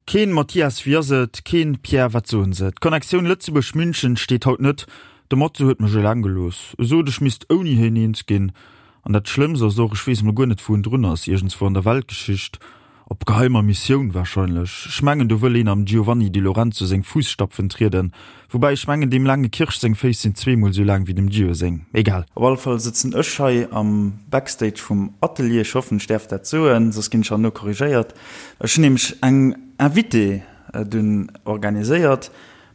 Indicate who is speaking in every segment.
Speaker 1: Keen Mathias, wéi ass et? Keen Pierre, wat soen se? D'Connectioun Lëtzebuerg-München steet haut net. De Matze huet mech eleng gelooss. E sot, ech misst ouni hien eens ginn. An dat Schlëmmst ass och, ech weess emol guer net, wou en drun ass. Iergendswou an der Weltgeschicht. Op geheimer Missioun warscheinlech. Ech mengen, do wëll een am Giovanni Di Lorenzo seng Fuusstapfen trieden. Woubäi ech mengen deem laange Kirsch seng Féiss sinn zweemol sou laang wéi dem Gio seng. Egal.
Speaker 2: Op alle Fall sëtzen ech hei am Backstage vum Atelier. Ech hoffen ech däerf dat soen, soss ginn ech herno korrigéiert. Ech hunn nämlech eng Invitée dunn organiséiert,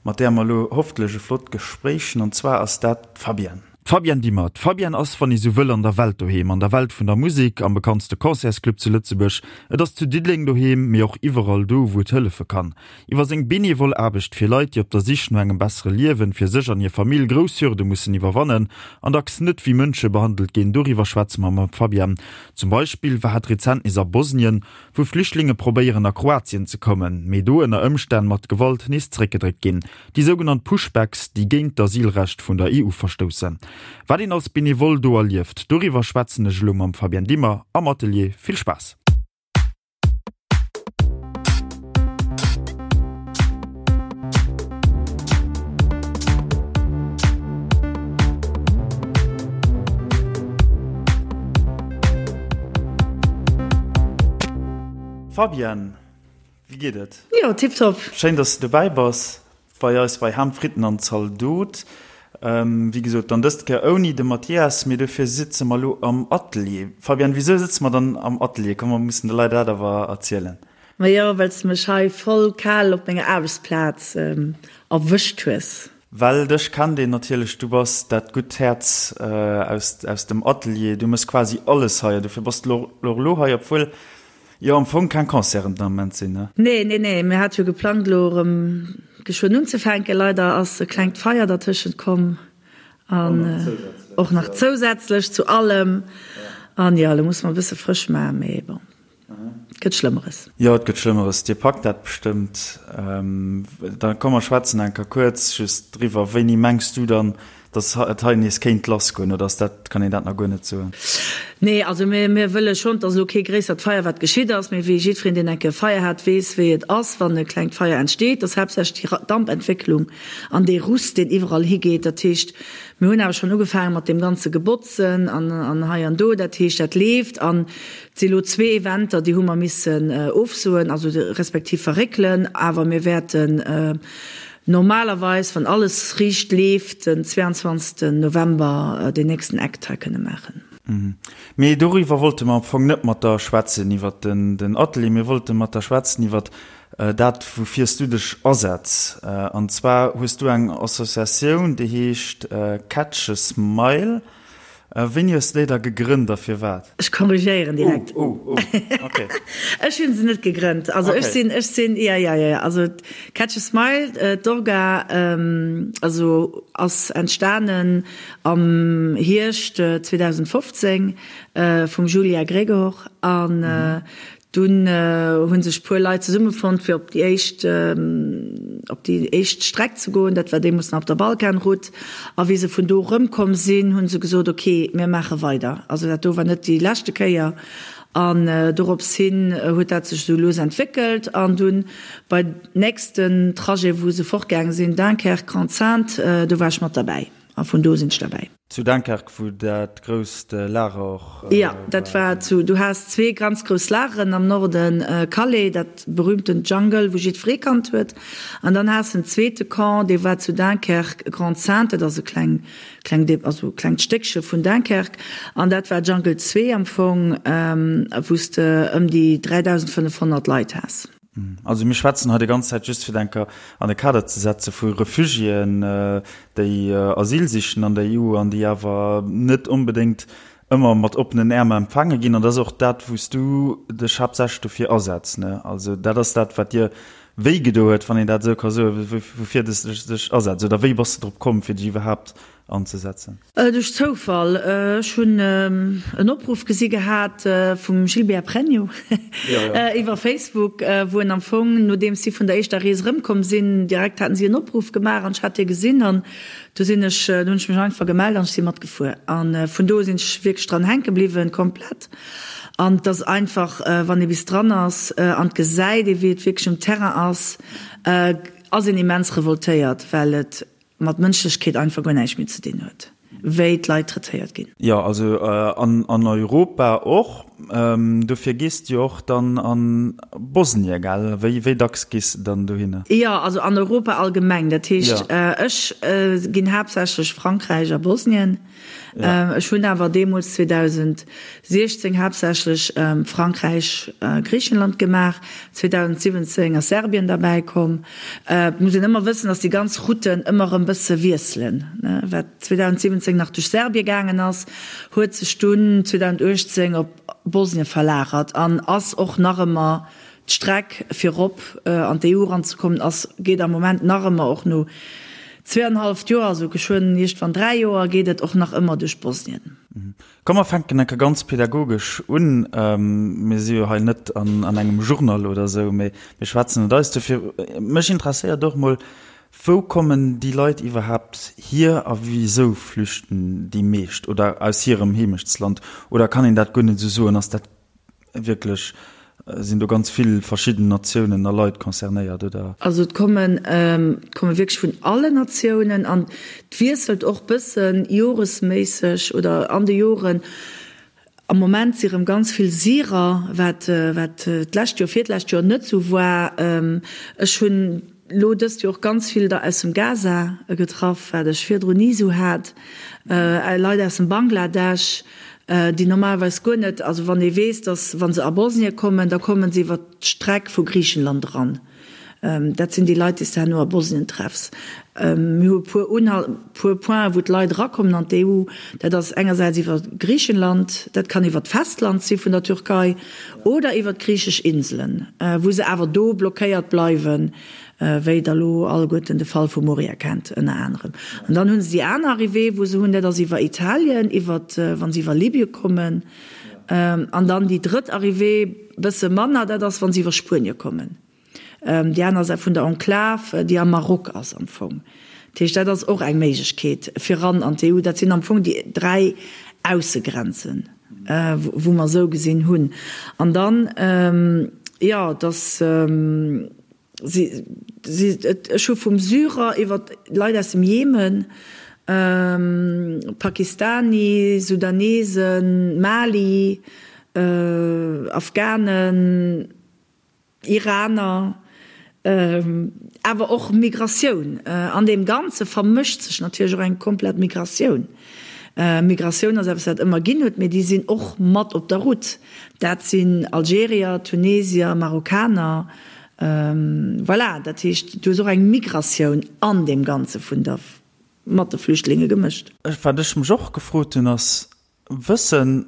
Speaker 2: mat där mer elo hofftlech e flott Gespréich hunn, an zwar ass dat d'Fabienne.
Speaker 1: D'Fabienne Dimmer. D'Fabienne ass, wann ee sou wëll, an der Welt doheem, an der Welt vun der Musek, am bekanntste Concertsclub zu Lëtzebuerg. Et ass zu Diddeleng doheem, mee och iwwerall do, wou et hëllefe kann. Iwwer seng benevol Aarbecht fir Leit, déi op der Sich no engem bessere Liewen fir sech an hir Famill grouss Hürde mussen iwwerwannen an dacks net wéi Mënsche behandelt ginn, doriwwer schwätze mer mam Fabienne. Zum Beispill war hat rezent nees a Bosnien, wou Flüchtlinge probéieren a Kroatien ze kommen, mee do ënner Ëmstänn mat Gewalt nees zréckgedréckt ginn. Déi sougenannt Pushbacks, déi géint d'Asylrecht vun der EU verstoussen. Wat een als Benevole do erlieft, doriwwer schwätzen ech elo mam Fabienne Dimmer am Atelier. Vill Spaass!
Speaker 2: Fabienne, wéi geet et?
Speaker 3: Jo, tiptop.
Speaker 2: Schéin, dass de dobäi bass. Bei eis bei Ham, Fritten an Zaldot. Wéi gesot, dann dëst Kéier ouni de Mathias, mee dofir sitze mer elo am Atelier. Fabienne, wisou sëtze mer dann am Atelier? Komm, mer mussen de Leit dat awer erzielen.
Speaker 3: Majo, well s de mech hei voll kal op menger Aarbechtsplaz erwëscht hues.
Speaker 2: Well dech kennt een natierlech, du bass dat gutt Häerz aus dem Atelier, du mëss quasi alles hei an dofir bass de och elo hei, obwuel Jo, am Fong keng Concerten den Ament sinn, ne?
Speaker 3: Nee, nee, nee, mir hate jo geplangt elo erëm geschwënn unzefänken. Leider ass e klengt Feier dertëschent komm an och nach zousätzlech zu allem. An jo, elo musse mer e bësse frësch maachen, mee bon, et gëtt Schlëmmeres.
Speaker 2: Jo, et gëtt Schlëmmeres. Dir packt dat bestëmmt. Da komm mer schwätzen eng Kéier kuerz just driwwer. Wéini mengs du dann, Dass et hei nees kéint lassgoen, oder ass dat, kann een dat nach guer net soen?
Speaker 3: Nee, also mir, mir wëlle schonn, et ass elo kee gréissert Feier, wat geschitt ass, mee wéi jiddwereen, deen eng Kéier e Feier hat, weess, wéi et ass, wann e klengt Feier entsteet, ass haaptsächlech déi Dampentwécklung an dee Rust, deen iwwerall higeet. Dat heescht, mir hunn awer schonn ugefaange mat deem ganze Gebotzen an, an hei an do. Dat heescht, dat leeft. An et si elo zwee Eventer, déi hu mer missen ofsoen, also respektiv verréckelen, awer mir wäerten, Normalerweis, wann alles riicht leeft, den 22 November den nächsten Act hei kënne maachen.
Speaker 2: Mee doriwwer wollte mer am Fong net mat der schwätzen, iwwer den Atelier. Mir wollte mat der schwätzen iwwer dat, woufir s du dech asetz. An zwar hues du eng Associatioun, déi heescht Catch a Smile. Wéini hues de déi da gegrënnt a firwat?
Speaker 3: Ech korrigéieren direkt.
Speaker 2: Oh, oh, oh, okay.
Speaker 3: Ech hunn se net gegrënnt. Also ech sinn, ech sinn, ja, ja, ja, ja. Also Catch a Smile, d'Orga, also ass entstanen am Hierscht 2015 vum Julia Gregor an Dunn hu sech puer Leit zesummefonnt fir op déi éischt op déi éischt Streck ze goen. Dat war deemools nach op der Balkanroute. A wéi se vun do erëmkomm sinn, hu se gesot, ok, mir maache weider. Also dat do war net déi leschte Kéier. An dorops hin huet dat sech esou lues entwéckelt. An dunn bei nächsten Trajet, wou se fortgaange sinn, Dunkerque, Grande-Synthe, do war ech mat derbäi. A vun do sinn ech derbäi.
Speaker 2: Zu Dunkerque, wou dat grousst Lager och
Speaker 3: war. Jo, dat war zu, du has zwee ganz grouss Lageren am Norden, Calais, dat berühmtent Jungle, wou jiddweree kannt huet, an dann has en zweete Camp, dee war zu Dunkerque, Grande-Synthe, dat ass e kleng, kleng, also klengt Stéckche vun Dunkerque, an dat war Jungle 2 am Fong, wou s de ëm déi 3.500 Leit has.
Speaker 2: Also mir schwätzen hei déi ganz Zäit, just fir d'enker an de Kader ze setze vu Refugiéen, déi Asyl sichen an der EU an déi awer net onbedéngt ëmmer mat oppenen Äerm empfaange ginn. An dat ass och dat, wou s du dech haaptsächlech dofir asetz, ne? Also dat ass dat, wat dir wéi gedo huet, wann een dat esou ka soen, woufir s de dech asetz. Oder wéi bass de drop komm, fir dech iwwerhaapt. anzesetzen?
Speaker 3: Duerch Zoufall. Ech hunn en Opruff gesi gehat vum Gilbert Pregno iwwer Facebook, wou en am Fong, nodeems si vun der éischter Rees erëmkomm sinn, direkt haten si en Opruff gemaach an ech hat dee gesinn an du sinn ech, du hunn ech mech einfach gemellt an ech si matgefuer an vun do u sinn ech wierklech dran hänke bliwwen, komplett. An et ass einfach, wann ee bis dran ass an et gesäit ee wéi et wierklech um Terrain ass, ass een immens revoltéiert, well et mat Mënschlechkeet einfach guer näischt méi ze dinn huet, wéi d'Leit traitéiert ginn.
Speaker 2: Jo, also an Europa och. Dofir gees de jo och dann a Bosnien, gell? Wéi dacks gees de dann dohinner?
Speaker 3: Jo, also an Europa allgemeng. Dat heescht, ech ginn haaptsächlech Frankräich a Bosnien. Ech hunn awer deemools 2016 haaptsächlech Frankräich, Griichenland gemaach. 2017 ass Serbien derbäi komm. Et muss een ëmmer wëssen, datt déi ganz Routen ëmmer erëm bësse wiesselen. Wat 2017 nach duerch Serbien gaangen ass, huet sech dunn 2018 op Bosnien verlagert an ass och nach ëmmer D'Streck fir rop an d'EU eranzekommen ass, geet am Moment nach ëmmer, och no zweeanenhalleft Joer, also geschwënn iergendwann 3 Joer, geet et och nach ëmmer duerch Bosnien.
Speaker 2: Komm mer fänken enke ganz pädagogesch un. Mir si jo hei net an engem Journal oder esou, mee mir schwätzen et eis. Dofir, mech interesséiert och mol, wou kommen déi Leit iwwerhaapt hier a wisou flüchten déi meescht oder aus hirem Heemechtsland? Oder kann een dat guer net esou soen? Ass dat Wierklech, sinn do ganz vill verschidden Natiounen a Leit concernéiert, oder?
Speaker 3: Also et kommen, et komme wierklech vun allen Natiounen an et wiesselt och bëssen joresméisseg oder an de Joren. Am Moment si rëm ganz vill Syrer, wat, wat d'lescht Joer, virdlescht Joer net sou war. Ech hunn Lo dëst Joer och ganz vill der aus dem Gaza getraff, wat ech virdrun ni sou hat. Leit aus dem Bangladesch, déi normalerweis guer net, also wann ee weess, dass wa se a Bosnien kommen, da kommen se iwwer d'Streck vu Griichenland eran. Dat sinn déi Leit, déi s de herno a Bosnien treffs. Mir hu e puer Unhal, puer Pointen, wou d'Leit erakommen an d'EU. Dat ass engersäits iwwer Griichenland, dat kann iwwer d'Festland si vun der Türkei oder iwwer d'griichesch Inselen, wou se awer do blockéiert bleiwen, wéi Der elo alleguerten de Fall vu Moria kennt ënner anerem. An dann hu se déi aner Arrivée, wou se hunn, dat ass iwwer Italien, iwwer, wa se iwwer Libye kommen. An dann déi drëtt Arrivée, bësse manner, dat ass, wa se iwwer Spuenie kommen. Déi aner Säit vun der Enklave, déi am Maroc ass am Fong. Dat heescht, dat ass och eng Méiglechkeet fir ran an d'EU. Dat sinn am Fong déi 3 Aussegrenzen, wou mer esou gesinn hunn. An dann, jo, dass si, si, ech hu vum Syrer iwwer Leit aus dem Jemen, Pakistani, Sudanesen, Mali, Afghanen, Iraner, awer och Migratioun. An deem Ganze vermëscht sech natierlech och eng komplett Migratioun. Migratioun ass eppes, wat et ëmmer ginn huet, mee déi sinn och mat op der Route. Dat sinn Algerier, Tunesier, Marokkaner. Voilà, dat heescht, du hues och eng Migratioun an deem Ganze vun der, mat de Flüchtlinge gemëscht.
Speaker 2: Wat ech mech och gefrot hunn, ass, Wësse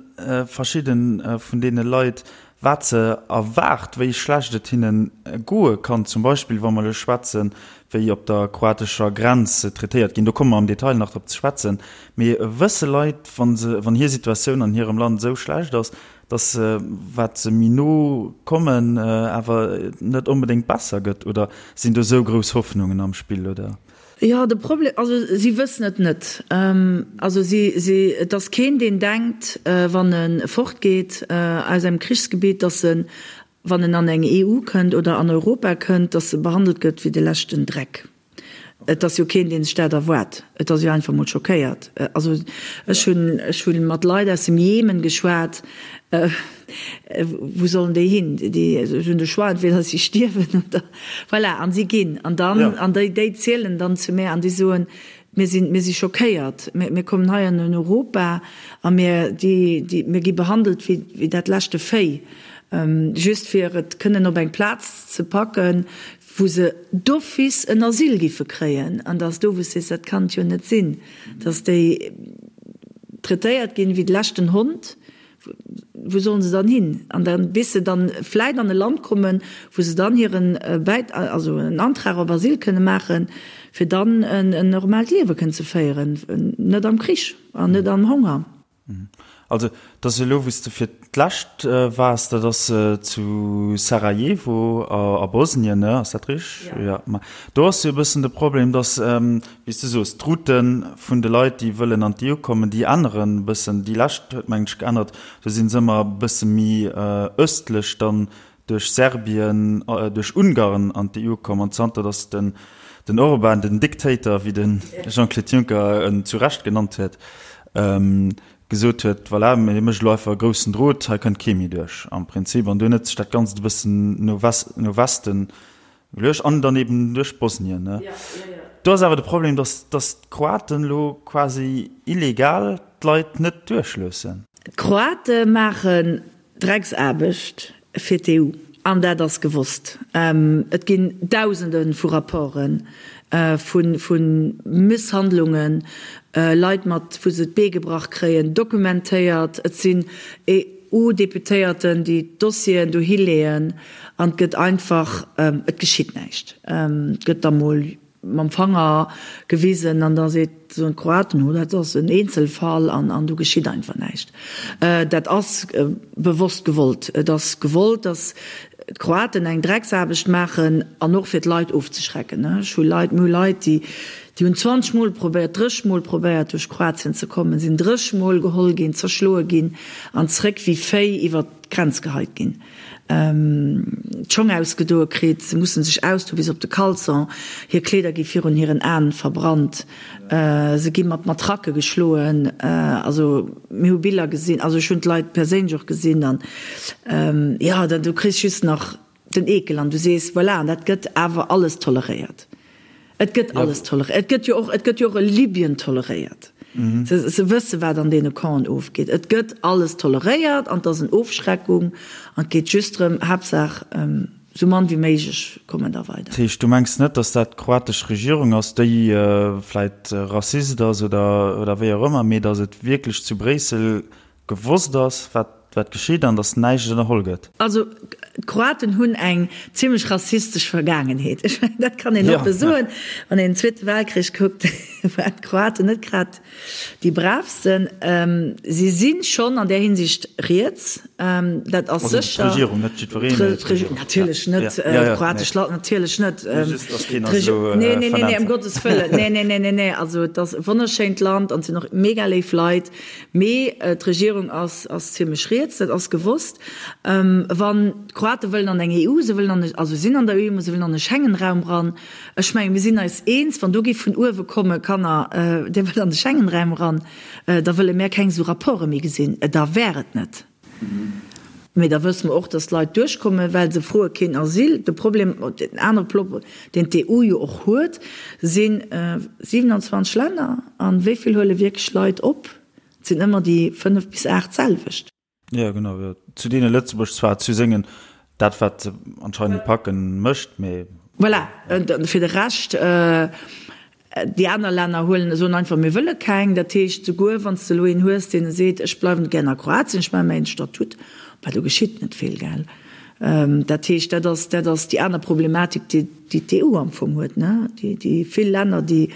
Speaker 2: verschidde vun deene Leit, wat se erwaart, wéi schlecht et hinne goe kann, zum Beispill wa mer elo schwätzen, wéi op der kroatescher Grenz se traitéiert ginn? Do komme mer am Detail nach drop ze schwätzen. Mee wësse Leit, wa se, wann hir Situatioun an hirem Land esou schlecht ass, datt se, wat se méi no kommen, awer net onbedéngt besser gëtt? Oder sinn do esou grouss Hoffnungen am Spill, oder?
Speaker 3: Jo, de Problem, also si wëssen et net. Also si, si, et ass keen, deen denkt, wann e fortgeet aus engem Krichsgebitt, datt en, wann en an eng EU kënnt oder an Europa kënnt, datt e behandelt gëtt wéi de leschten Dreck. Et ass jo keen, dee sech dat erwaart. Et ass jo einfach emol schockéiert. Also ech hunn, ech hu mat Leit aus dem Jemen geschwat, Wou sollen déi hin? Déi hunn de Choix, entweder si stierwen oder voilà, an si ginn. An dann, an déi, déi zielen dann zu mär an déi soen, Mir sinn, mir si schockéiert, mir, mir kommen hei an Europa a mir, déi, déi, mir gi behandelt wéi, wéi dat leschte Véi, just fir et kënnen op eng Plaz ze packen, wou se d'office en Asyl giffe kréien. An da ass do, wou s sees, dat kann et jo net sinn, datt déi traitéiert ginn wéi de leschten Hond. wou sollen se dann hin? An dann, bis se dann vläit an e Land kommen, wou se dann hiren Bäit, also en Antrag op Asyl kënne maachen, fir dann en normaalt Liewe kënnen ze féieren, net am Krich an net am Honger.
Speaker 2: Also, et ass elo, wou s de fir d'lescht waars, dat ass zu Sarajevo a Bosnien, ne? Ass dat richteg? Jo. Ma do ass jo e bëssen de Problem, datt, wéi s de soos, d'Route vun de Leit, déi wëllen an d'EU kommen, déi änneren e bëssen. Déi lescht huet, mengen ech, geännert. Do si se ëmmer e bësse méi ëstlech dann duerch Serbien, duerch Ungarn an d'EU komm. An zanter datt den den Orban, den Dictator, wéi de Jean-Claude Juncker en zu Recht genannt huet, gesot huet, voilà, hie mécht elo einfach e groussen Drot, hei kënnt kee méi duerch am Prinzip. An dunn huet sech dat Ganzt e bëssen no no Westen geluecht an dann eben duerch Bosnien. Do ass awer de Problem, datt datt d'Kroaten elo quasi illegal d'Leit net duerchloossen.
Speaker 3: D'Kroate maachen Drecksaarbecht fir d'EU, an dat ass gewosst. Et ginn Dausende vu Rapporte vu Misshandlungen, Leit mat wou se d'Bee gebrach kréien, dokumentéiert. Et sinn EU-Deputéierten, déi d'Dossieren dohi leeën an et gëtt einfach, et geschitt näischt. Et gëtt da mol mam Fanger gewisen an da seet, soen d'Kroaten, oh dat ass en Eenzelfall an an do geschitt einfach näischt. Dat ass bewosst gewollt. Et ass gewollt, datt d'Kroaten eng Drecksaarbecht maachen an och fir d'Leit ofzeschrecken. Ech hu Leit, mir hu Leit, déi déi hunn 20 Mol probéiert, 30 Mol probéiert duerch Kroatien ze kommen, sinn 30 Mol geholl ginn, zerschloe ginn an zréck wéi Véi iwwert d'Grenz geheit ginn. d'Schong ausgedoe kritt, se mussen sech ausdoe bis op de Caleçon, hir Kleeder gi virun hiren Aen verbrannt, se gi mat Matracke geschloen, also mir hu Biller gesinn, also ech hunn d'Leit perséinlech och gesinn an jo, da du kriss just nach den Eekel an du sees, voilà, an dat gëtt awer alles toleréiert. Et gëtt alles toleréiert. Et gëtt jo och, et gëtt jo och e Libyen toleréiert. Se, se wësse wat an deene Campen ofgeet. Et gëtt alles toleréiert an et ass en Ofschreckung an et geet just drëm, Haaptsaach esou mann wéi méiglech kommen der weider.
Speaker 2: Dat heescht, du mengs net, datt dat d'kroatesch Regierung ass, déi vläit Rassist ass oder, oder wéi och ëmmer, mee datt et wierklech zu Bréissel gewosst ass, wat, wat geschitt an datt näischt ënnerholl gëtt.
Speaker 3: Also, d'Kroaten hunn eng zimlech rassistesch Vergaangenheet. Ech mengen, dat kann een oppe soen. Wann een den Zweete Weltkrich kuckt, waren d'Kroaten net grad déi braavsten. Si si schonn an där Hinsicht riets, dat ass sécher.
Speaker 2: Also d'Regierung, net jiddwereen, mee
Speaker 3: d'Regierung. Natierlech net, d'kroatesch Land natierlech net. Just, datt keen eis elo Nee, nee, nee, nee, ëm Gottes Wëllen. Nee, nee, nee, nee, nee. Also, et ass e wonnerschéint Land an et sinn och mega léif Leit. Mee d'Regierung ass ass zimlech riets, dat ass gewosst. Wann d'Kroate wëllen an eng EU, se wëllen an e, also sinn an der EU, mä se wëllen an e Schengenraum ran. Ech mengen, mir sinn eis eens, wann do géif vun uewe komme, Kanner, dir wëllt an de Schengenraum eran, da wëlle mär keng esou Rapporte méi gesinn. Da wär et net. Mee da wësse mer och, dass d'Leit duerchkommen, well se froe keen Asyl. De Problem, den anere Problem, deen d'EU jo och huet, si 27 Länner. A wéi vill huele wierklech Leit op? Et sinn ëmmer déi 5 bis 8 selwecht.
Speaker 2: Jo, genau, jo. Zu deene Lëtzebuerg zwar zu sengen, dat wat se anscheinend packen, mécht, mee.
Speaker 3: Voilà, fir de Rescht. Déi aner Länner huelen, soen einfach, mir wëlle keng. Dat heescht, souguer wann s de elo een hues, deen seet, ech bleiwen gär a Kroatien, ech maache mäin Statut, bah, do geschitt net vill, gell. Dat heescht, dat ass, dat ass déi aner Problematik, déi déi d'EU am Fong huet, ne, déi déi vill Länner, déi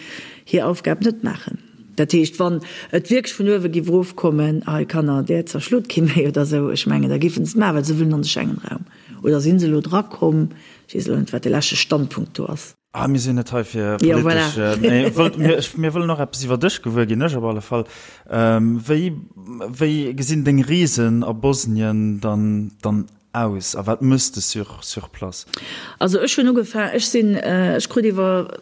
Speaker 3: hir Aufgab net maachen. Dat heescht, wann et wierklech vun uewe géif erofkommen, hei Kanner, där zerschlot kee méi oder esou, ech mengen, da géifen se et maachen, well se wëllen an de Schengenraum. Oder si se elo drakomm? Ech weess elo net, wat de leschte Standpunkt do ass.
Speaker 2: Ah, mir sinn net hei fir politesch. Ja, voilà. Mee wëllt, mir, mir wëllen och eppes iwwer dech gewuer ginn, ech op alle Fall. Ähm, wéi, wéi gesinn deng Reesen a Bosnien dann, dann aus a wat mëss de sur, sur place?
Speaker 3: Also ech hunn ugefaangen, ech sinn, ech krut iwwer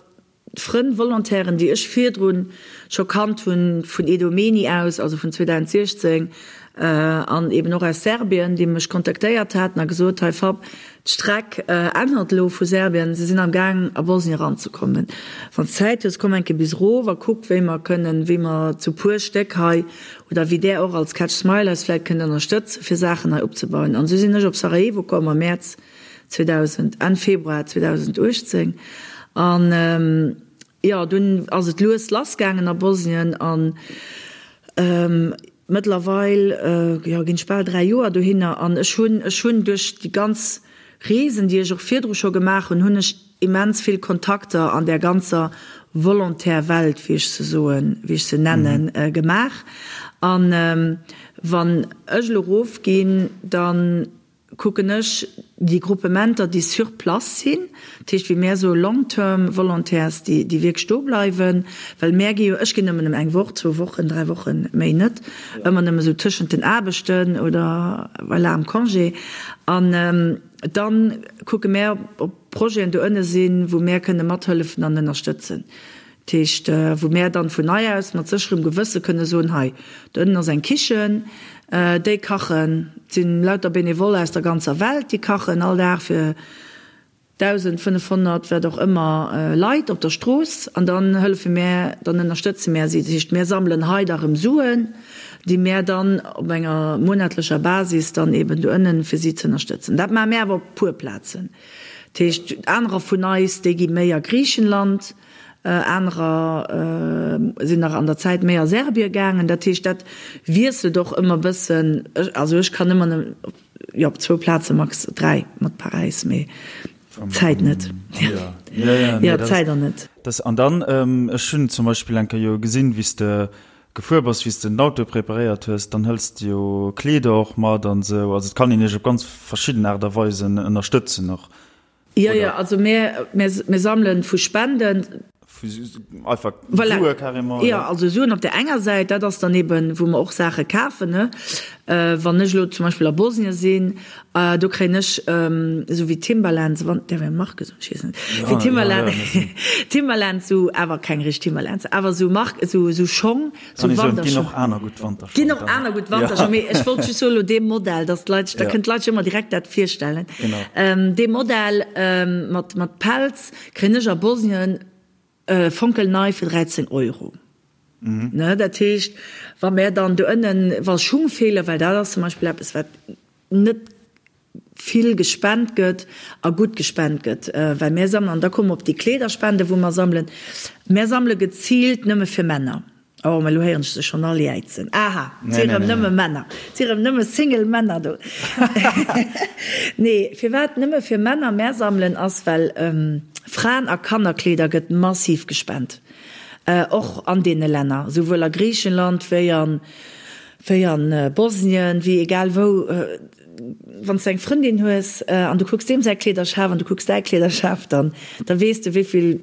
Speaker 3: Frënn, Volontairen, déi ech virdrun scho kannt hunn vun Idomeni aus, also vun 2016, an eben och aus Serbien, déi mech kontaktéiert haten a gesot, hei Fab, d'Streck ännert elo vu Serbien, se sinn am Gaang a Bosnien eranzekommen. Wann s Zäit hues, komm eng Kéier bis erof a kuck wéi mer kënnen, wéi mer zu puer Stéck hei oder wéi där och als Catch Smile eis vläit kënnt ënnerstëtzen, fir Saachen hei opzebauen. An esou sinn ech op Sarajevo komm am Mäerz 2000, Enn Februar 2018. An jo, dunn ass et lues lassgaangen a Bosnien an. Mëttlerweil, jo, ginn ech bal 3 Joer dohinner an ech hunn, ech hunn duerch déi ganz Reesen, déi ech och virdru scho gemaach hunn, hunn ech immens vill Kontakter an där ganzer Volontaire-Welt, wéi ech se soen, wéi ech se nennen, gemaach. An wann ech elo erofginn, dann kucken ech déi Gruppementer, déi sur place sinn, dat heescht wéi mär soe long-term Volontaires, déi déi wierklech do bleiwen, well mär gi jo, ech ginn nëmmen ëm eng Woch, zwou Wochen, 3 Wochen, méi net, ëmmer nëmme sou tëschent den Aarbechten oder voilà am Congé. An dann kucke mär, ob Projeten do ënne sinn, wou mär kënne mathëllefen an ënnerstëtzen. Dat heescht, wou mär dann vun nei aus mat sécherem Gewësse kënne soen, hei do ënnen ass eng Kichen, déi kachen, et sinn lauter Bénévole aus der ganzer Welt, déi kachen all Dag fir 1.500, wat och ëmmer, Leit op der Strooss an dann hëllefe mär, dann ënnerstëtze mär si. Dat heescht, mär sammelen hei da rëm Suen, déi mär dann op enger monatlecher Basis dann eben do ënnen, fir si ze ënnerstëtzen. Dat maache mär awer op puer Plazen. Dat heescht, anerer vun eis, déi gi méi a Griichenland, Anerer sinn nach an der Zäit méi a Serbie gaangen. Dat heescht, dat wiesselt och ëmmer e bëssen. Also ech kann ëmmer nëmmen, jo, op zwou Plaze max. 3 mat Paräis, mee d'Zäit net. Jo, d'Zäit an net.
Speaker 2: An dann, ech hunn zum Beispill eng Kéier jo gesinn, wéi s de gefuer bass, wéi s de den Auto preparéiert hues, dann hëls de jo Kleeder och mat an esou. Also et kann een iech op ganz verschidden Aart a Weisen ënnerstëtzen och.
Speaker 3: Jo, jo, also mir, mir sammelen vu Spenden.
Speaker 2: Vu einfach voilà. Sue carrément.
Speaker 3: Jo, also Suen op der enger Säit, dat ass dann eben, wou mer och Saache kafen, ne. Wann ech elo zum Beispill a Bosnien sinn, do kréien ech esou wéi Timberlands, wann, däerf een Marke soen? Ech weess net. Wéi Timberland, Timberlands, esou, awer keng richteg Timberlands, awer esou Mark, esou, esou Schong.
Speaker 2: Kann ee soen, et ginn och aner gutt
Speaker 3: Wanterschong. Ginn och aner gutt Wanterschong, mee ech wollt just soen, elo dee Modell, dass d'Leit sech, da kënnen d'Leit sech ëmmer direkt dat virstellen. Dee Modell mat, mat Pelz kréien ech a Bosnien fonkelnei fir 13 Euro. Ne, dat heescht, wa mär dann do ënnen, wa Schung feelen, well dat ass zum Beispill eppes, wat net vill gespent gëtt a gutt gespent gëtt, well mär sammelen, an da komme mer op déi Kleederspende wou mer sammelen, mär sammele geziilt nëmme fir Männer. Oh, mä elo héieren ech se schonn all jäizen, Aha, et si rëm nëmme Männer, et si rëm nëmme Single Männer do. Nee, firwat nëmme fir Männer mär sammelen, ass well Fraen a Kannerkleeder gëtt massiv gespent, och an deene Länner, souwuel a Griichenland wéi an, wéi an Bosnien, wéi egal wou. Wann s de eng Frëndin hues an du kucks deem säi Kleederschaf an du kucks däi Kleederschaf, dann da weess de wéi vill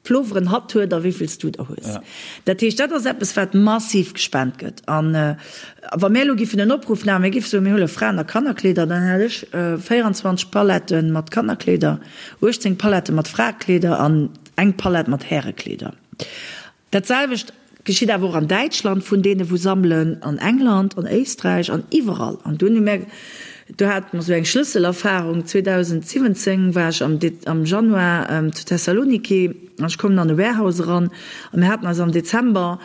Speaker 3: Ploveren hatt huet a wéi vill s du der hues. Dat heescht, dat ass eppes wat massiv gespent gëtt. An wa mär elo giffen en Opruff maachen, mir giffe soen, mir huele Fraen a Kannerkleeder, dann hätt ech 24 Pallette mat Kannerkleeder, 18 Pallette mat Fraekleeder an eng Pallett mat Härekleeder. Dat selwecht geschitt awer och an Däitschland vun deene wou sammelen, an England, an Éisträich an iwwerall. An dunn hu mär, do hate mer esou eng Schlësselerfarung, 2017 war ech am am Januar zu Thessaloniki an ech kommen an e Warehouse eran a mir haten eis am Dezember,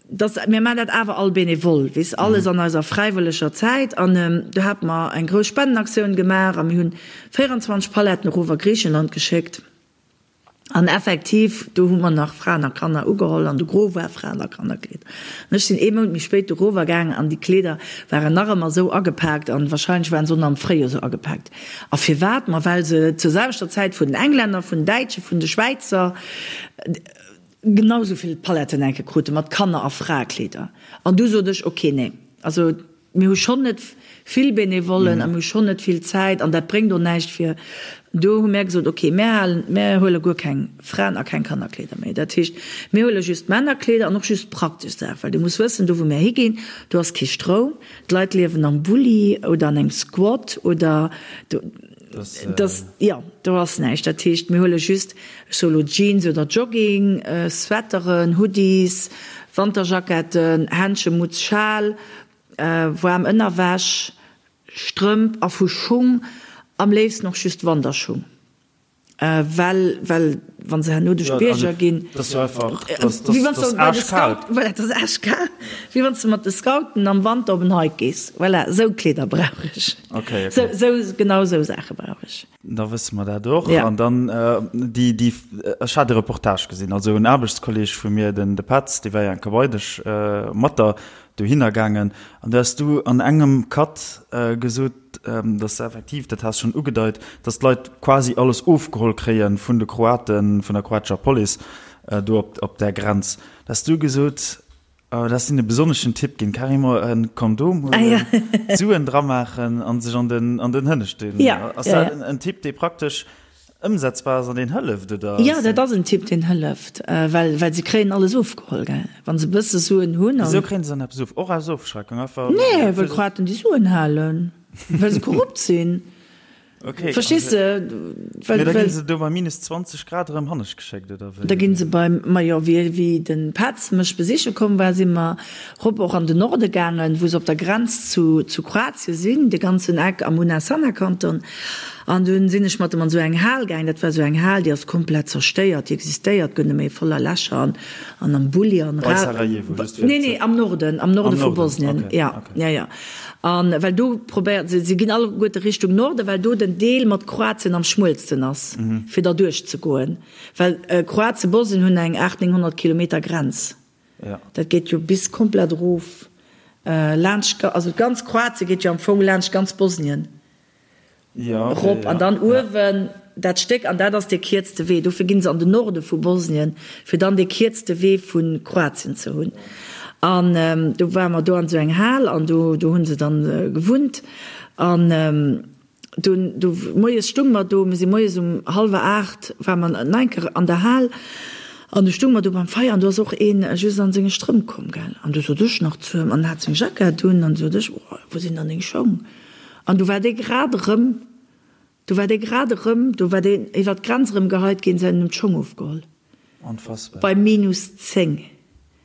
Speaker 3: dass, mir maachen dat awer all bénévol, weess, alles an eiser fräiwëlleger Zäit an do hate mer eng grouss Spendenaktioun gemaach a mir hunn 24 Paletten erof a Griichenland geschéckt. An effektiv, do hu mer nach Fraen a Kanner ugeholl an de Gros war Fraen a Kannerkleeder. An ech sinn ee Mount méi spéit do rower gaangen an déi Kleeder waren nach ëmmer esou agepaakt an wahrscheinlech waren se och nach am Fréijoer esou agepaakt. A firwat? Ma well se zur selwechter Zäit vun den Englänner, vun den Däitschen, vun de Schwäizer genau esou vill Paletten enke krute mat Kanner a Fraekleeder. An du sot ech, ok, nee, also Mir hu schonn net vill Benevollen a mir hu schonn net vill Zäit an dat bréngt och näischt fir. Do hu mär gesot, okay, mär halen, mär huele guer keng Fraen a keng Kannerkleeder méi. Dat heescht, mir huele just Männerkleeder an och just praktesch Saachen, well du muss wëssen, do wou mär higinn, do ass kee Stroum, d'Leit liewen am Bulli oder an engem Squat oder do, dass, jo, do ass näischt. Dat heescht, mir huele just, ech soe lo Jeans oder Jogging, Sweateren, Hoodies, Wanterjacketten, Händschen, Mutz, Schal, waarm Ënnerwäsch, Strëmp a vu Schung am léifsten och just Wanderschung, well well wa se herno duerch d'Bierger ginn, wéi wann s de bei de Scout, voilà, et ass aaschkal, wéi wann s de mat de Scouten am Wanter op en Hike gees, voilà, esou Kleeder brauch ech, sou sou genau esou Saache brauch ech.
Speaker 2: Da wësse mer dat och. An dann déi, déi, ech hat e Reportage gesinn, also en Aarbechtskolleg vu mir, den de Petz, dee war jo eng Kéier bei dech mat der. Dohinner gaangen. An do has du an engem Cut gesot, dass effektiv, dat has schonn ugedeit, dass d'Leit quasi alles ofgeholl kréie vun de Kroaten, vun der kroatescher Police do op där Grenz. Da has du gesot, da has de e besonneschen Tipp ginn, carrément e Kondom huelen, d'Suen dramaachen a sech an den Hënneschten. Ass dat en Tipp, dee praktesch Ëmsetzbar ass an deen hëlleft, oder?
Speaker 3: Jo, dat ass en Tipp, deen hëlleft, well, well se kréien alles ofgeholl, gell, wa se e bësse Suen hunn.
Speaker 2: Wisou kréien se dann eppes of? Och aus Ofschreckung einfach?
Speaker 3: Nee, well d'Kroaten déi Suen halen, well se korrupt sinn.
Speaker 2: Okay.
Speaker 3: Verstees de?
Speaker 2: Well, Mee da ginn se do bei minus 20 Grad erëm hannescht geschéckt, oder
Speaker 3: wéi? Da ginn se beim, majo, wéi, wéi de Petz mech besiche komm war, si mer rop och an den Norde gaangen, wou se op der Grenz zu, zu Kroatien sinn, de ganzen Eck am Una-Sana-Kanton. An dunn sinn ech mat em an esou eng Hal gaang. Dat war esou eng Hal, déi ass komplett zerstéiert, déi existéiert guer net méi, voller Lächer an an am Bulli an
Speaker 2: Bei Sarajevo, just
Speaker 3: fir Nee, nee, am Norden, am Norde vu Bosnien, ja, ja, ja. An well do probéiert, se ginn alleguerte Richtung Norden, well do den Deel mat Kroatien am schmuelsten ass, fir derduerch ze goen. Well Kroatien, Bosnien hunn eng 800, 900 Kilometer Grenz. Dat geet jo bis komplett erof laanscht, also ganz Kroatien geet jo am Fong laanscht ganz Bosnien. Erop an dann uewen dat Stéck, an dat ass dee kierzte Wee. Dofir ginn se an den Norde vu Bosnien, fir dann dee kierzte Wee vu Kroatien ze hunn. An do ware mer do an esou eng Hal an do do hu se dann gewunnt. An dunn do moies stung mer do, mir si moies um hallwer 8 ware mer nach eng Kéier an der Hal an du stung mer do beim Feier an do ass och een just an senge Strëmp komm, gell. An du sot ech nach zu him, an en hat seng Jackett un, an du sot ech, oh, wou sinn dann deng Schong? An du war dee grad erëm, du war dee grad erëm, do war deen iwwer d'Grenz erëm geheit ginn, se hunn em d'Schong ofgeholl.
Speaker 2: Onfassbar.
Speaker 3: Bei minus 10.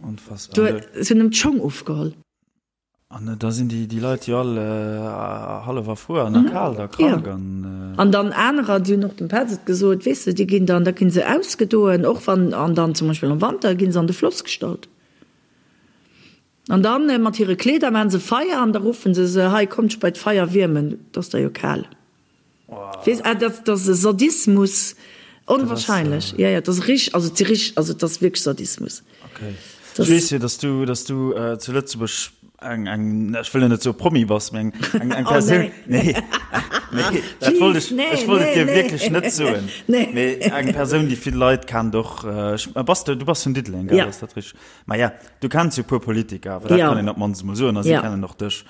Speaker 2: Onfassbar.
Speaker 3: Do, se hunn em d'Schong ofgeholl.
Speaker 2: An da sinn déi, déi Leit jo all hallef erfruer an a kal da krank an.
Speaker 3: An dann anerer, déi hunn och dem Petz et gesot, weess de, déi ginn dann, da ginn se ausgedoen, och wann, an dann zum Beispill am Wanter ginn se an de Floss gestallt. An dann mat hire Kleeder maan se Feier an da ruffen se se, hei kommt dech bei d'Feier wiermen, et ass der jo kal. Weess, ah dat ass e Sadismus, onwahrscheinlech. Jo, jo, et ass rich, also et si rich, also et ass wierklech Sadismus.
Speaker 2: Okay. Ech weess jo, dass du, dass du zu Lëtzebuerg eng, eng, ech wëll jo net soe Promi bass, mee eng, eng, eng Persoun, nee, nee, dat wollt ech, ech wollt et dir wierklech net soen, mee eng Persoun, déi vill Leit kennt och, ech, bass du, du bass vun Diddeleng, gell, ass dat richteg? Maja, du kenns jo e puer Politiker, awer dat kann een op d'mannst emol soen, a si kennen och dech.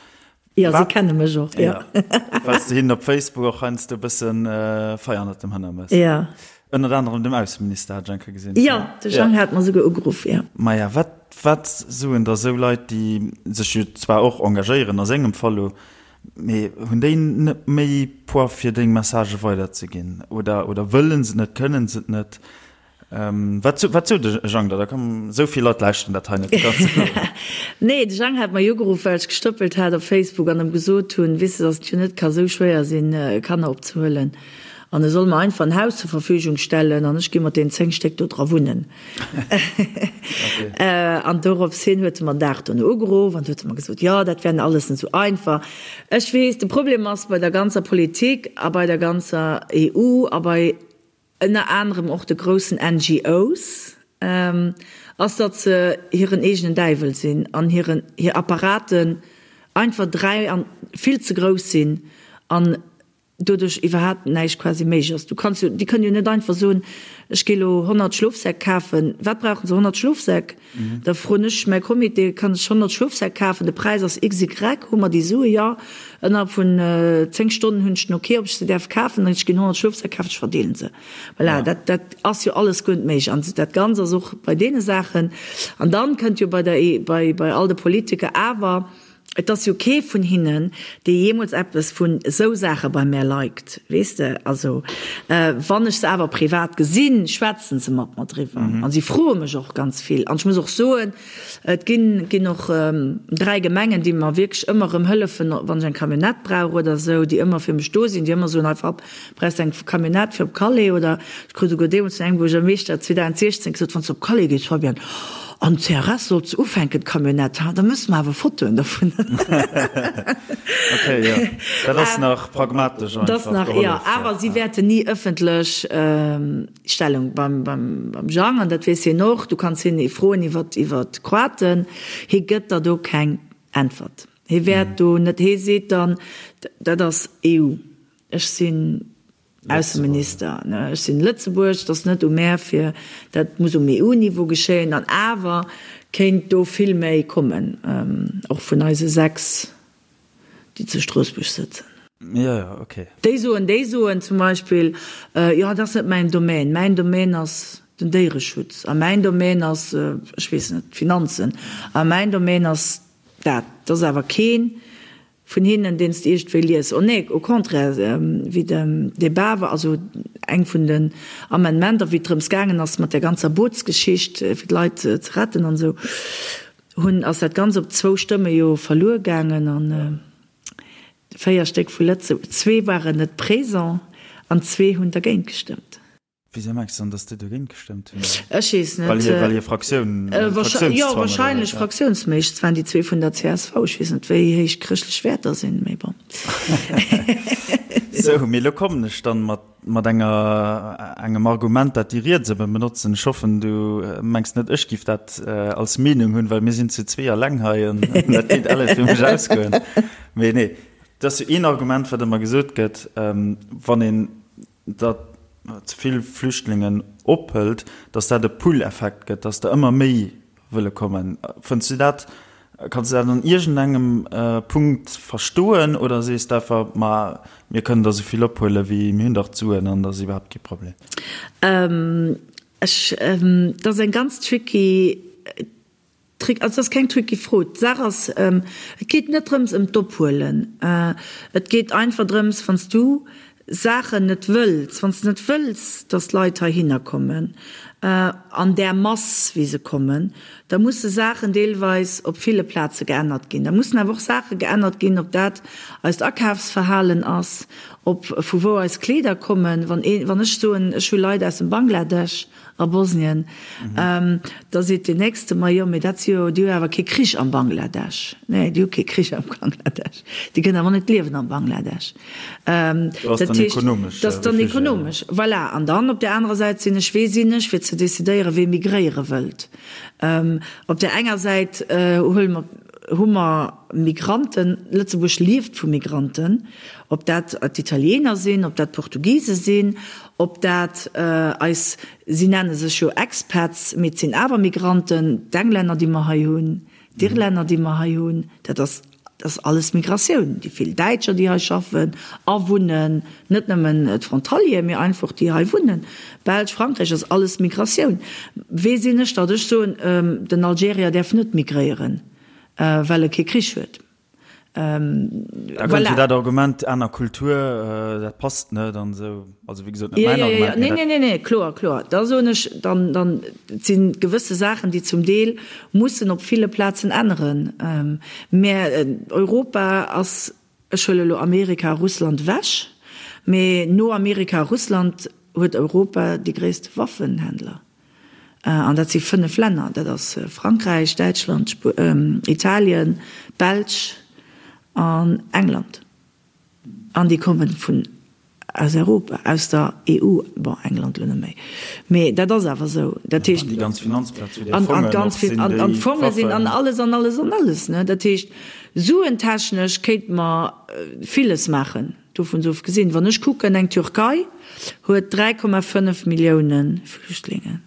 Speaker 3: Jo, si kenne mech och, jo.
Speaker 2: Well s de hinnen op Facebook och heiansdo e bëssen Feier ënnert dem Hënner mëss.
Speaker 3: Jo.
Speaker 2: Ënnert anerem dem Ausseminister hat ech eng Kéier gesinn.
Speaker 3: Jo, de Jang hat mer souguer ugeruff, jo.
Speaker 2: Maja, wat, wat soen da sou Leit, déi sech jo zwar och engagéieren, a sengem Fall lo, mee hunn déi net méi Poids fir deng Messagë weiderzeginn? Oder, oder wëllen se et net, kënnen se et net? Wat wat sot de Jang da? Da komm, esou vill Leit lauschteren dat hei net, du kanns et soen.
Speaker 3: Nee, de Jang hat mer jo ugeruff, well ech gestëppelt hat op Facebook an em gesot hunn, weess de, datt et jo net ka sou schwéier sinn, Kanner opzehuelen an e soll mer einfach en Haus zur Verfügung stellen an ech gi mat deenen 10 Stéck do dra wunnen. An dorops hin huet e mer den Dag dono ugeruff an huet e mer gesot, jo, dat wär alles net sou einfach. Ech weess, de Problem ass bei der ganzer Politik a bei der ganzer EU a bei ënner anerem och de groussen NGOs, ass, datt se hiren eegenen Däiwel sinn an hiren, hir Apparaten einfach 3 an vill ze grouss sinn an doduerch iwwerhaapt näischt quasi méiglech ass. Du kanns jo, déi kënnen jo net einfach soen, ech gi lo 100 Schlofsäck kafen. Wat brauchen se? 100 Schlofsäck? Da froen ech mäi Comité, kann ech 100 Schlofsäck kafen? De Präis ass XY. Hu mer déi Sue? Jo. Ënnerhalb vun 10 Stonnen hunn ech den Ok, ob ech se däerf kafen. Ech ginn 100 Schlofsäck kafen, ech verdeelen se. Voilà, dat, dat ass jo alles guer net méiglech. An dat Ganzt ass och bei deene Saachen. An dann kënnt jo bei der, bei, bei all de Politiker awer, Et ass jo kee vun hinnen, dee jeemools eppes vun esou Saache bei mär liked, weess de. Also, wann ech se awer privat gesinn, schwätzen se mat mer driwwer a si froe mech och ganz vill. An ech muss och soen, et ginn, ginn och 3 Gemengen, déi mer wierklech ëmmer erëm hëllefen, wann ech eng Camionnette brauch oder esou, déi ëmmer fir mech do sinn, déi ëmmer soen, hei Fab, brauchs de eng Camionnette fir op Calais? Oder ech krut esouguer deemools vun engem Buergermeeschter 2016 gesot, wann s de op Calais gees, Fabienne, An CRS sollt se ufänken, d'Camionnette, ha, da mësse mer awer Fotoen dovun.
Speaker 2: Ok, jo, dat ass nach pragmatesch
Speaker 3: einfach. Dat ass nach, jo, awer si wäerten ni ëffentlech Stellung beim, beim, beim Jang, an dat weess hien och, du kanns hien froen iwwer, iwwer d'Kroaten, hie gëtt der do keng. Äntwert. Hie wäert do net, hie seet dann, dat ass EU, ech sinn Ausseminister, ech sinn Lëtzebuerg, et ass net u mär fir, dat muss um EU-Niveau geschéien. An awer kéint do vill méi kommen, och vun eise 6, déi zu Stroossbuerg sëtzen.
Speaker 2: Jo, jo, ok.
Speaker 3: Déi soen, déi soen zum Beispill, jo, dat ass net mäin Domaine, mäin Domaine ass den Déiereschutz a mäin Domaine ass, ech weess net, d'Finanzen a mäin Domaine ass dat. Et ass awer keen Vun hinnen, deen s de iergendwéi lies. Oh nee, au contraire, wéi de Débat war, also eng vun den Amendementer, wéi et drëms gaangen ass mat där ganzer Bootsgeschicht, fir d'Leit ze retten an esou, hunn, ass dat Ganzt op zwou Stëmme jo verluer gaangen an véier Stéck vu Lëtzebuerg, zwee waren net présent an zwee hunn dergéint gestëmmt.
Speaker 2: Wéisou mengs de dann, datt déi dogéint gestëmmt hunn?
Speaker 3: Ech weess net.
Speaker 2: Well hir, well hir Fraktioun,
Speaker 3: Fraktionszwang Jo, wahrscheinlech fraktiounsméisseg. Et waren déi zwee vun der csv. Ech weess net, wéi héich chrëschtlech Wäerter sinn, mee bon.
Speaker 2: Sou, mee elo kommen ech dann mat, mat enger, engem Argument, dat déi Riets ëmmer benotzen. Ech hoffen, du mengs net, ech giff dat als Meenung hunn, well mir sinn zu zwee alleng hei an dat kéint alles fir mech ausgoen. Mee nee, dat ass jo een Argument, wat ëmmer gesot gëtt, wann een datt ze vill Flüchtlingen ophëlt, datt dat e Pull-Effekt gëtt, datt der ëmmer méi wëlle kommen. Fënns du dat, kanns du dat an iergendengem Punkt verstoen oder sees de einfach, ma mir kënnen der esou vill ophuelen, wéi mir hunn dach d'Suen an dat ass iwwerhaapt kee Problem?
Speaker 3: Ech, dat ass eng ganz tricky Trick, also et ass keng tricky Fro. D'Saach ass, et geet net drëms ëm d'Ophuelen. Et geet einfach drëms, wann s du Saachen net wëlls, wann s de net wëlls, datt Leit heihinner kommen an där Mass wéi se kommen, da musse Saachen deelweis op ville Plaze geännert ginn. Da mussen awer och Saache geännert ginn, ob dat eist Akafsverhalen ass, ob vu wou eis Kleeder kommen. Wann ee, wann ech soen, ech hu Leit aus dem Bangladesch, A Bosnien. Da seet deen Nächste, Ma jo, mee dat si jo, déi hu awer kee Krich am Bangladesch. Nee, déi hu kee Krich am Bangladesch. Déi kënnen awer net liewen am Bangladesch.
Speaker 2: Dat heescht,
Speaker 3: dat ass dann ekonomesch. Voilà. An dann op där anerer Säit sinn ech, wee sinn ech, fir ze decidéieren, wee migréiere wëllt? Op där enger Säit huele mer, hu mer Migranten, Lëtzebuerg lieft vu Migranten, ob dat d'Italiener sinn, ob dat d'Portugise sinn, Ob dat eis, si nenne sech jo Expats, mee et sinn awer Migranten, d'Englänner, déi mer hei hunn, d'Irlänner, déi mer hei hunn, dat ass, dat ass alles Migratioun. Déi vill Däitscher, déi hei schaffen a wunnen, net nëmmen d'Frontalieren, mee einfach déi hei wunnen, Belsch, Frankräich, ass alles Migratioun. Wee sinn ech, datt ech soen, den Algerier däerf net migréieren, well e kee Krich huet?
Speaker 2: Da kënnt jo dat Argument, aner Kultur, dat passt net an esou. Also wéi gesot, net mäin Argument.
Speaker 3: Nee, nee, nee, nee, kloer, kloer. Da soen ech, dann, dann, et si gewësse Saachen, déi zum Deel mussen op ville Plazen änneren. Mä Europa ass, ech huele elo Amerika a Russland ewech, mä no Amerika a Russland huet Europa déi gréisste Waffenhändler. An dat si 5 Länner, dat ass Frankräich, Däitschland, Italien, d'Belsch an England. An déi komme vun aus Europa, aus der EU, bon England elo net méi, mee dat ass awer esou. Dat heescht,
Speaker 2: An déi ganz Finanzplaz, wou déi Fongen och sinn, déi
Speaker 3: An d'Fonge sinn an alles an alles an alles. Dat heescht, suentechnesch kéinte mer villes maachen. Dovun ofgesinn, wann ech kucken, eng Türkei huet 3,5 Millioune Flüchtlingen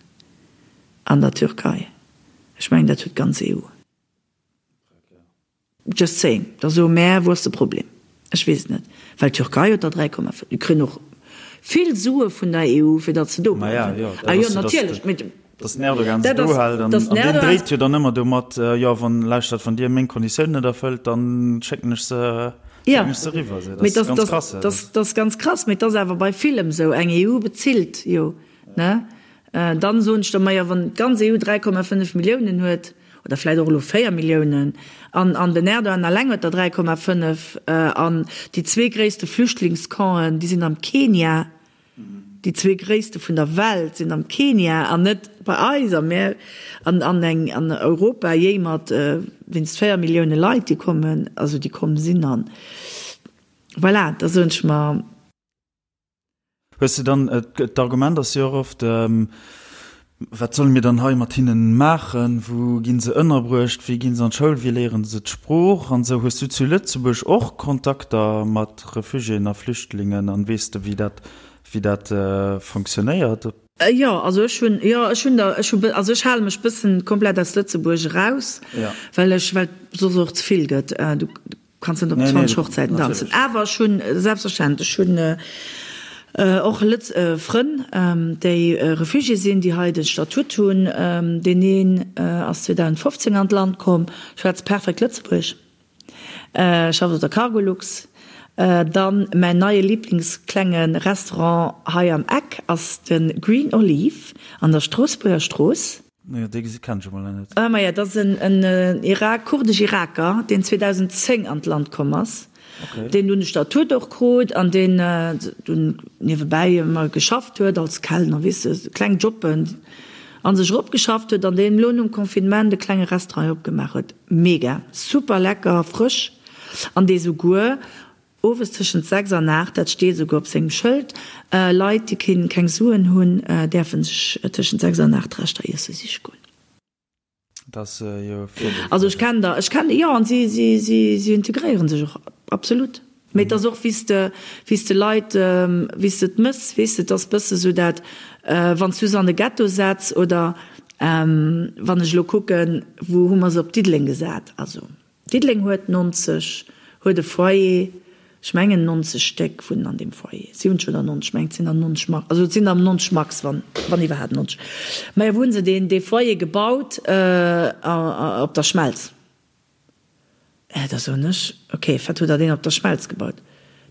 Speaker 3: an der Türkei. Ech mengen, dat huet d'ganz EU. Just saying. Da soe mär, wou ass de Problem? Ech weess et net. Well d'Türkei huet der 3,5. Déi kréien och vill Sue vun der EU, fir datt se do bleiwen. Ah jo, natierlech.
Speaker 2: Dass den Erdogan se do hält an deen dréit jo dann ëmmer domat, jo wann, lauschtert, wann Dir meng Konditiounen net erfëllt, dann schécken ech se, schécken ech se eriwwer.
Speaker 3: Esou, dat ass ganz krass. Dat ass ganz krass, mee et ass awer bei villem esou. Eng EU bezilt jo, ne? Dann soen ech der, majo wann d'ganz EU 3,5 Milliounen huet, oder vläicht och elo 4 Milliounen, an an den Erdogan alleng huet der 3,5, an déi zwee gréisste Flüchtlingscampen, déi sinn am Kenia, Déi zwee gréisste vun der Welt sinn am Kenia an net bei eis a mär an an eng an Europa jéimert wéinst 4 Millioune Leit déi kommen, also déi komm sinn an voilà, da soen ech mer.
Speaker 2: Hues de dann, d'Argument ass jo och oft. Wat solle mir dann hei mat hinnen maachen? Wou ginn se ënnerbruecht? Wéi ginn se an d'Schoul? Wéi léieren se d'Sprooch an esou? Hues du zu Lëtzebuerg och Kontakter mat Refugiéen a Flüchtlingen an weess de wéi dat wéi dat fonctionnéiert?
Speaker 3: Jo, also ech hunn, jo ech hunn der, ech hu, also ech hale mech bëssen komplett aus Lëtzebuerg eraus, well ech, well et soss och ze vill gëtt. Du Kanns net op 20 Hochzäiten danzen. Awer ech hunn, selbstverständlech, ech hunn och Lëtz Frënn, déi Refugié sinn, déi hei de Statut hunn. Deen een ass 2015 an d'Land komm, schwätzt perfekt Lëtzebuergesch, schafft op der Cargolux. Dann mäin neie Liblingsklenge Restaurant hei am Eck ass de Green Olive an der Stroossbuerger Strooss.
Speaker 2: Jo, dee gesi kennen ech emol nach net.
Speaker 3: Ah maja, dat ass en Irak, kurdesch-Iraker, deen 2010 an d'Land komm ass, deen dunn de Statut och krut an deen dunn niewebäi ëmmer geschafft huet als Kellner, weess de, kleng Jobben a sech eropgeschafft huet an deen elo nom Confinement e klenge Restaurant hei opgemaach huet. Mega, super lecker, frësch an dee souguer Owes tëschent 6 an 8, dat steet esouguer op sengem Schëld, Leit, déi keng Suen hunn, däerfe sech tëschent 6 an 8 Reschter iesse siche goen.
Speaker 2: Dat ass jo virdeel.
Speaker 3: Also ech kennen der, ech kennen, jo, an si, si, si, si integréiere sech och absolut. Mee et ass och, wéi s de, wéi s de Leit, wéi s de et mëss, weess de, et ass bësse sou dat, wann s du se an de Ghetto setz oder wann ech elo kucken, wou hu mer se op Diddeleng gesat, also. Diddeleng huet 90, huet e Foyer, ech mengen 90 Stéck wunnen an deem Foyer, 70 oder 90, ech mengen et sinn der 90 max, also et sinn der 90 max, wann, wann iwwerhaapt 90. Majo, wou hu se deen, dee Foyer gebaut? Op der Schmelz. Da soen ech, ok, wat hutt Der deen op der Schmelz gebaut?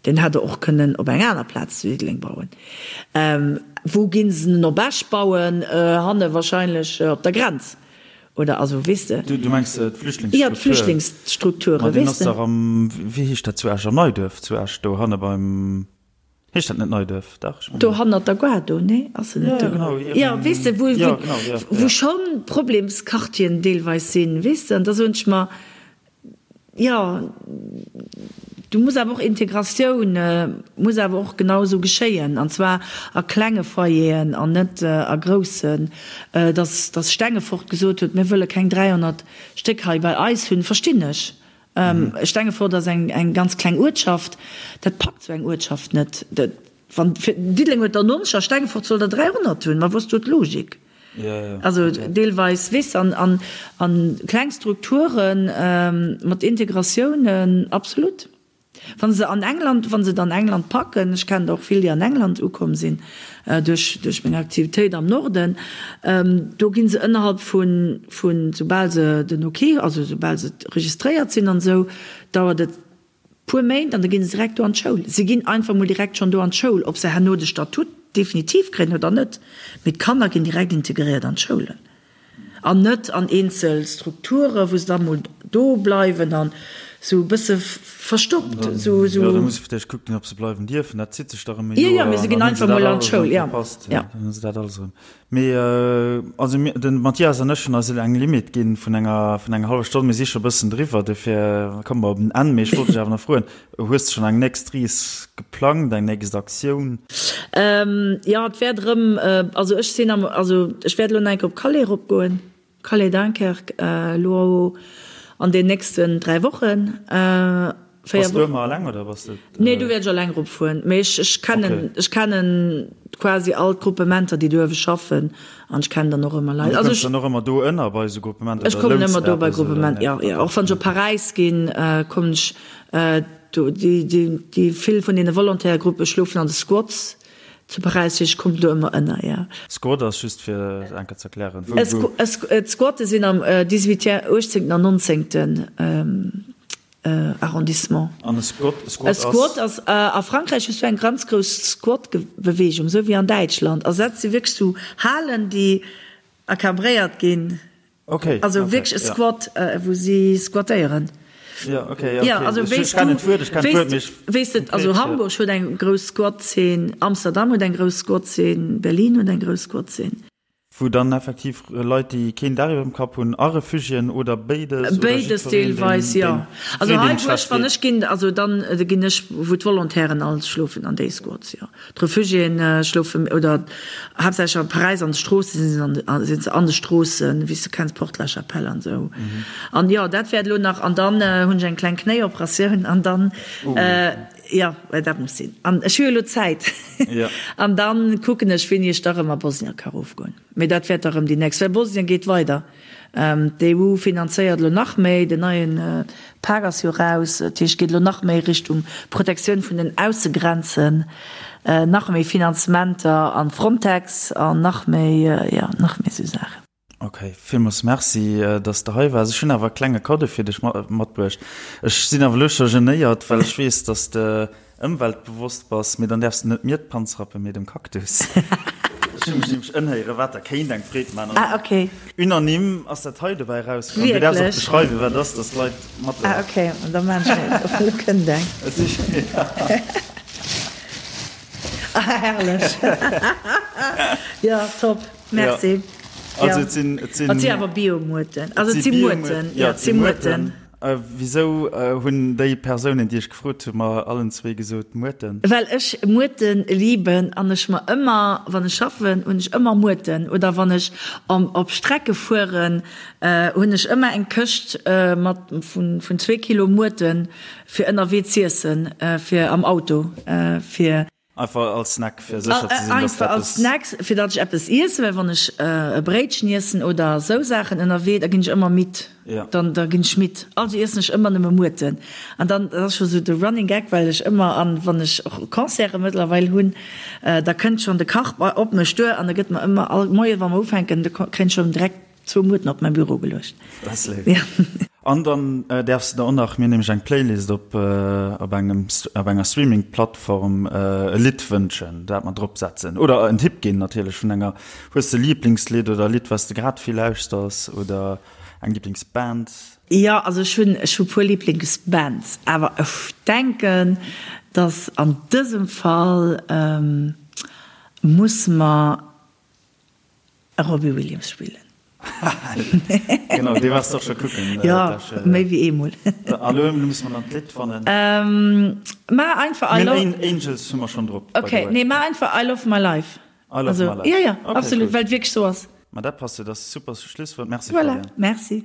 Speaker 3: Deen hätt Der och kënnen op eng aner Plaz zu Diddeleng bauen. Wou ginn se en op Esch bauen? Hanne wahrscheinlech op der Grenz. Oder also, weess de.
Speaker 2: Du mengs d'Flüchtlingsstruktur?
Speaker 3: Jo, d'Flüchtlingsstrukture,
Speaker 2: weess de. Ma deen ass dach am, wéi heescht dat zu Esch, am Neiduerf zu Esch, do hanne beim, heescht dat net Neiduerf? Dach,
Speaker 3: ech mengen. Do hannert der Gare do, nee? Ass se net do?
Speaker 2: Jo, genau.
Speaker 3: Jo, weess de, wou, wou schonn Problemsquartieren deelweis sinn, weess de. An da soen ech mer, Jo, do muss awer och Integratioun muss awer och genau esou geschéien, an zwar a klenge Foyeren an net a groussen. Dass dass Stengefort gesot huet, mir wëlle keng 300 Stéck hei bei eis hunn, verstinn ech. Stengefort ass eng eng ganz kleng Uertschaft, dat packt esou eng Uertschaft net. Wann Diddeleng huet der 90 a Stengefort soll der 300 hunn, ma wou ass do d'Logik? Also deelweis weess an an an kleng Strukturen mat Integratiounen, absolut. Wa se an England, wa se et an England packen, ech kennen der och vill, déi an England ukomm sinn duerch duerch meng Aktivitéit am Norden, do gi se ënnerhalb vun vun soubal se den Ok, also soubal se registréiert sinn an esou, dauert et Puer Méint an da ginn se direkt do an d'Schoul. Se ginn einfach mol direkt schonn do an d'Schoul, ob se herno de Statut definitiv kréien oder net, mee d'Kanner ginn direkt integréiert an d'Schoulen an net an eenzel Strukture wou se da mol do bleiwen an esou e bësse verstoppt.
Speaker 2: Esou, esou. Jo, da muss ee vläicht kucken, ob se bleiwen dierfen. Dat zitt sech da rëm e
Speaker 3: Joer. Jo, jo, mee se ginn einfach mol an d'Schoul, jo.
Speaker 2: Jo. Dann hu se dat alles erëm. Mee also mir, de Mathias an ech hunn eis elo eng Limite ginn vun enger vun enger hallwer Stonn. Mir si scho e bëssen driwwer, dofir komme mer op en Enn. Mee ech wollt dech awer nach froen, Hues de schonn eng nächst Rees geplangt, eng nächst Aktioun?
Speaker 3: Jo, et wäert erëm, also ech sinn am, also ech wäert elo nach eng Kéier op Calais eropgoen. Calais Dunkerque elo an den nächsten 3 Wochen.
Speaker 2: 4 Bass du ëmmer alleng oder bass
Speaker 3: de? Nee, do wäert ech alleng erop fueren. Mee ech ech kennen ech kennen quasi all d'Gruppementer déi do uewe schaffen an ech kennen dann och ëmmer Leit.
Speaker 2: An du kënns dann och ëmmer do ënner bei esou Gruppementer?
Speaker 3: Ech kommen ëmmer do bei Gruppementer, jo jo. Och wann ech op Paräis ginn, kommen ech do. Déi déi déi vill vun deene Volontaire-Gruppe schlofen an de Squats. Zu Paräis, ech kommen do ëmmer ënner, jo.
Speaker 2: Squat ass just fir et eng Kéier ze erklären,
Speaker 3: wou, wou. D'Squatte sinn am dix-huitième, uechtzéngten an nonzéngten Arrondissement.
Speaker 2: An e Squat, e Squat
Speaker 3: ass? E Squat ass, a Frankräich hues du eng ganz grouss Squat-Beweegung, esou wéi an Däitschland. Also dat si wierklech sou Halen, déi encadréiert ginn.
Speaker 2: Okay,
Speaker 3: Also okay, wierklech e ja. Squat, wou si squattéieren.
Speaker 2: Ja, okay, ja, okay. Ja, also ech, ech kennen d'Wuert, ech kennen d'Wuert, mee ech.
Speaker 3: Weess de, also ja. Hamburg huet eng grouss Squat-Zeen, Amsterdam huet eng grouss Squat-Zeen, Berlin huet eng grouss Squat-Zeen.
Speaker 2: Wou dann effektiv Leit, déi keen Daach iwwer dem Kapp hunn, a Refugiéen oder béides oder
Speaker 3: Béides
Speaker 2: jiddwereen,
Speaker 3: deelweis,
Speaker 2: deen,
Speaker 3: jo.
Speaker 2: deen
Speaker 3: Also
Speaker 2: deen
Speaker 3: hei,
Speaker 2: deem
Speaker 3: wou ech,
Speaker 2: schlecht
Speaker 3: wann
Speaker 2: geet.
Speaker 3: ech ginn, also dann ginn ech, wou d'Volontairen all schlofen an déi Squads, jo. D'Refugiéen schlofen, oder haaptsächlech a Paräis an de Stroosse sinn se an de, sinn se an de Stroossen, wéi s de kenns, Porte la Chapelle an esou. An jo, dat wäert elo nach, an dann hunn ech eng kleng Knéioperatioun an dann, jo, well dat muss sinn. An ech hu jo elo Zäit. An dann kucken ech, wéini ech da rëm a Bosnien ka rofgoen. Mee dat wäert da rëm déi nächst, well Bosnien geet weider. D'EU finanzéiert elo nach méi, den neie Pak ass jo raus, dat heescht, et geet elo nach méi Richtung Protektioun vun den Aussegrenzen, nach méi Finanzementer an Frontex an nach méi, jo, nach méi esou Saachen.
Speaker 2: Ok, villmools Merci, dass de hei waars. Ech hunn awer e klenge Kaddo fir dech matbruecht. Ech sinn awer elo scho genéiert, well ech weess, dass de ëmweltbewosst bass. Mee dann däerfs de net mir d'Panz rappen, mee dem Cactus. Ech hu mech nämlech ëmhéieren, wat der kéint eng Freed maachen.
Speaker 3: Ah, ok.
Speaker 2: Unanime ass dat hei dobäi erauskomm. Du däerfs och beschreiwen, wat et ass, dass d'Leit mat.
Speaker 3: Ah, ok, da maan ech et. Elo kënnt eng. Ah, herrlech. Jo, top. Merci.
Speaker 2: Ja. Also et sinn, et sinn.
Speaker 3: Et si awer Bio-Muerten. Also et si Muerten.
Speaker 2: Ja, et si Muerten. Wisou hunn déi Persounen, déi ech gefrot hunn, mer allen zwee gesot Muerten?
Speaker 3: Well ech Muerten liben an ech mer ëmmer, wann ech schaffen, hunn ech ëmmer Muerten. Oder wann ech op Strecke fueren, hunn ech ëmmer eng Këscht mat vun zwee Kilo Muerten fir ënnerwee z'iessen, fir am Auto, fir.
Speaker 2: Einfach als Snack, fir sécher ze sinn, dass
Speaker 3: Einfach als Snack, fir datt ech eppes iessen, well wann ech e Bréitchen iessen oder esou Saachen ënnerwee, da ginn ech ëmmer midd. Dann, da ginn ech midd. Also iessen ech ëmmer nëmme Muerten. An dann, dat ass scho sou de Running Gag, well ech ëmmer, an wann ech och Concerte mëttlerweil hunn, da kënnt schonn de Kach op mech duer an da gëtt mer ëmmer all Moie wa mer ufänken, da kréien ech schonn direkt Zwou Muerten op mäi Büro geluecht.
Speaker 2: Dat ass léif. Ja. An dann däerfs de der och nach, mir hunn nämlech eng Playlist op op engem op enger Streaming-Plattform, e Lidd wënschen, dat mer drop setzen. Oder en Tipp ginn natierlech vun enger, hues de e Liblingslidd oder e Lidd, wat s de grad vill lauschters oder eng Liblingsband?
Speaker 3: Jo, also ech hunn ech hu puer Liblingsbands, awer ech denken, datt an dësem Fall musse mer E Robbie Williams spillen.
Speaker 2: Genau, dee waars de och scho kucken.
Speaker 3: Jo, méi wéi eemol.
Speaker 2: A lo musse mer dann d'Lidd fannen.
Speaker 3: Maach einfach I love.
Speaker 2: Mir hunn Angels hu mer schonn drop,
Speaker 3: by the way. Ok, nee, maach einfach I love my life.
Speaker 2: I love my life.
Speaker 3: Jo, jo, absolut, well et wierklech sou ass.
Speaker 2: Ma dat passt jo, dat ass e super Schlusswuert. Merci,
Speaker 3: Voilà,
Speaker 2: Fabienne.
Speaker 3: merci.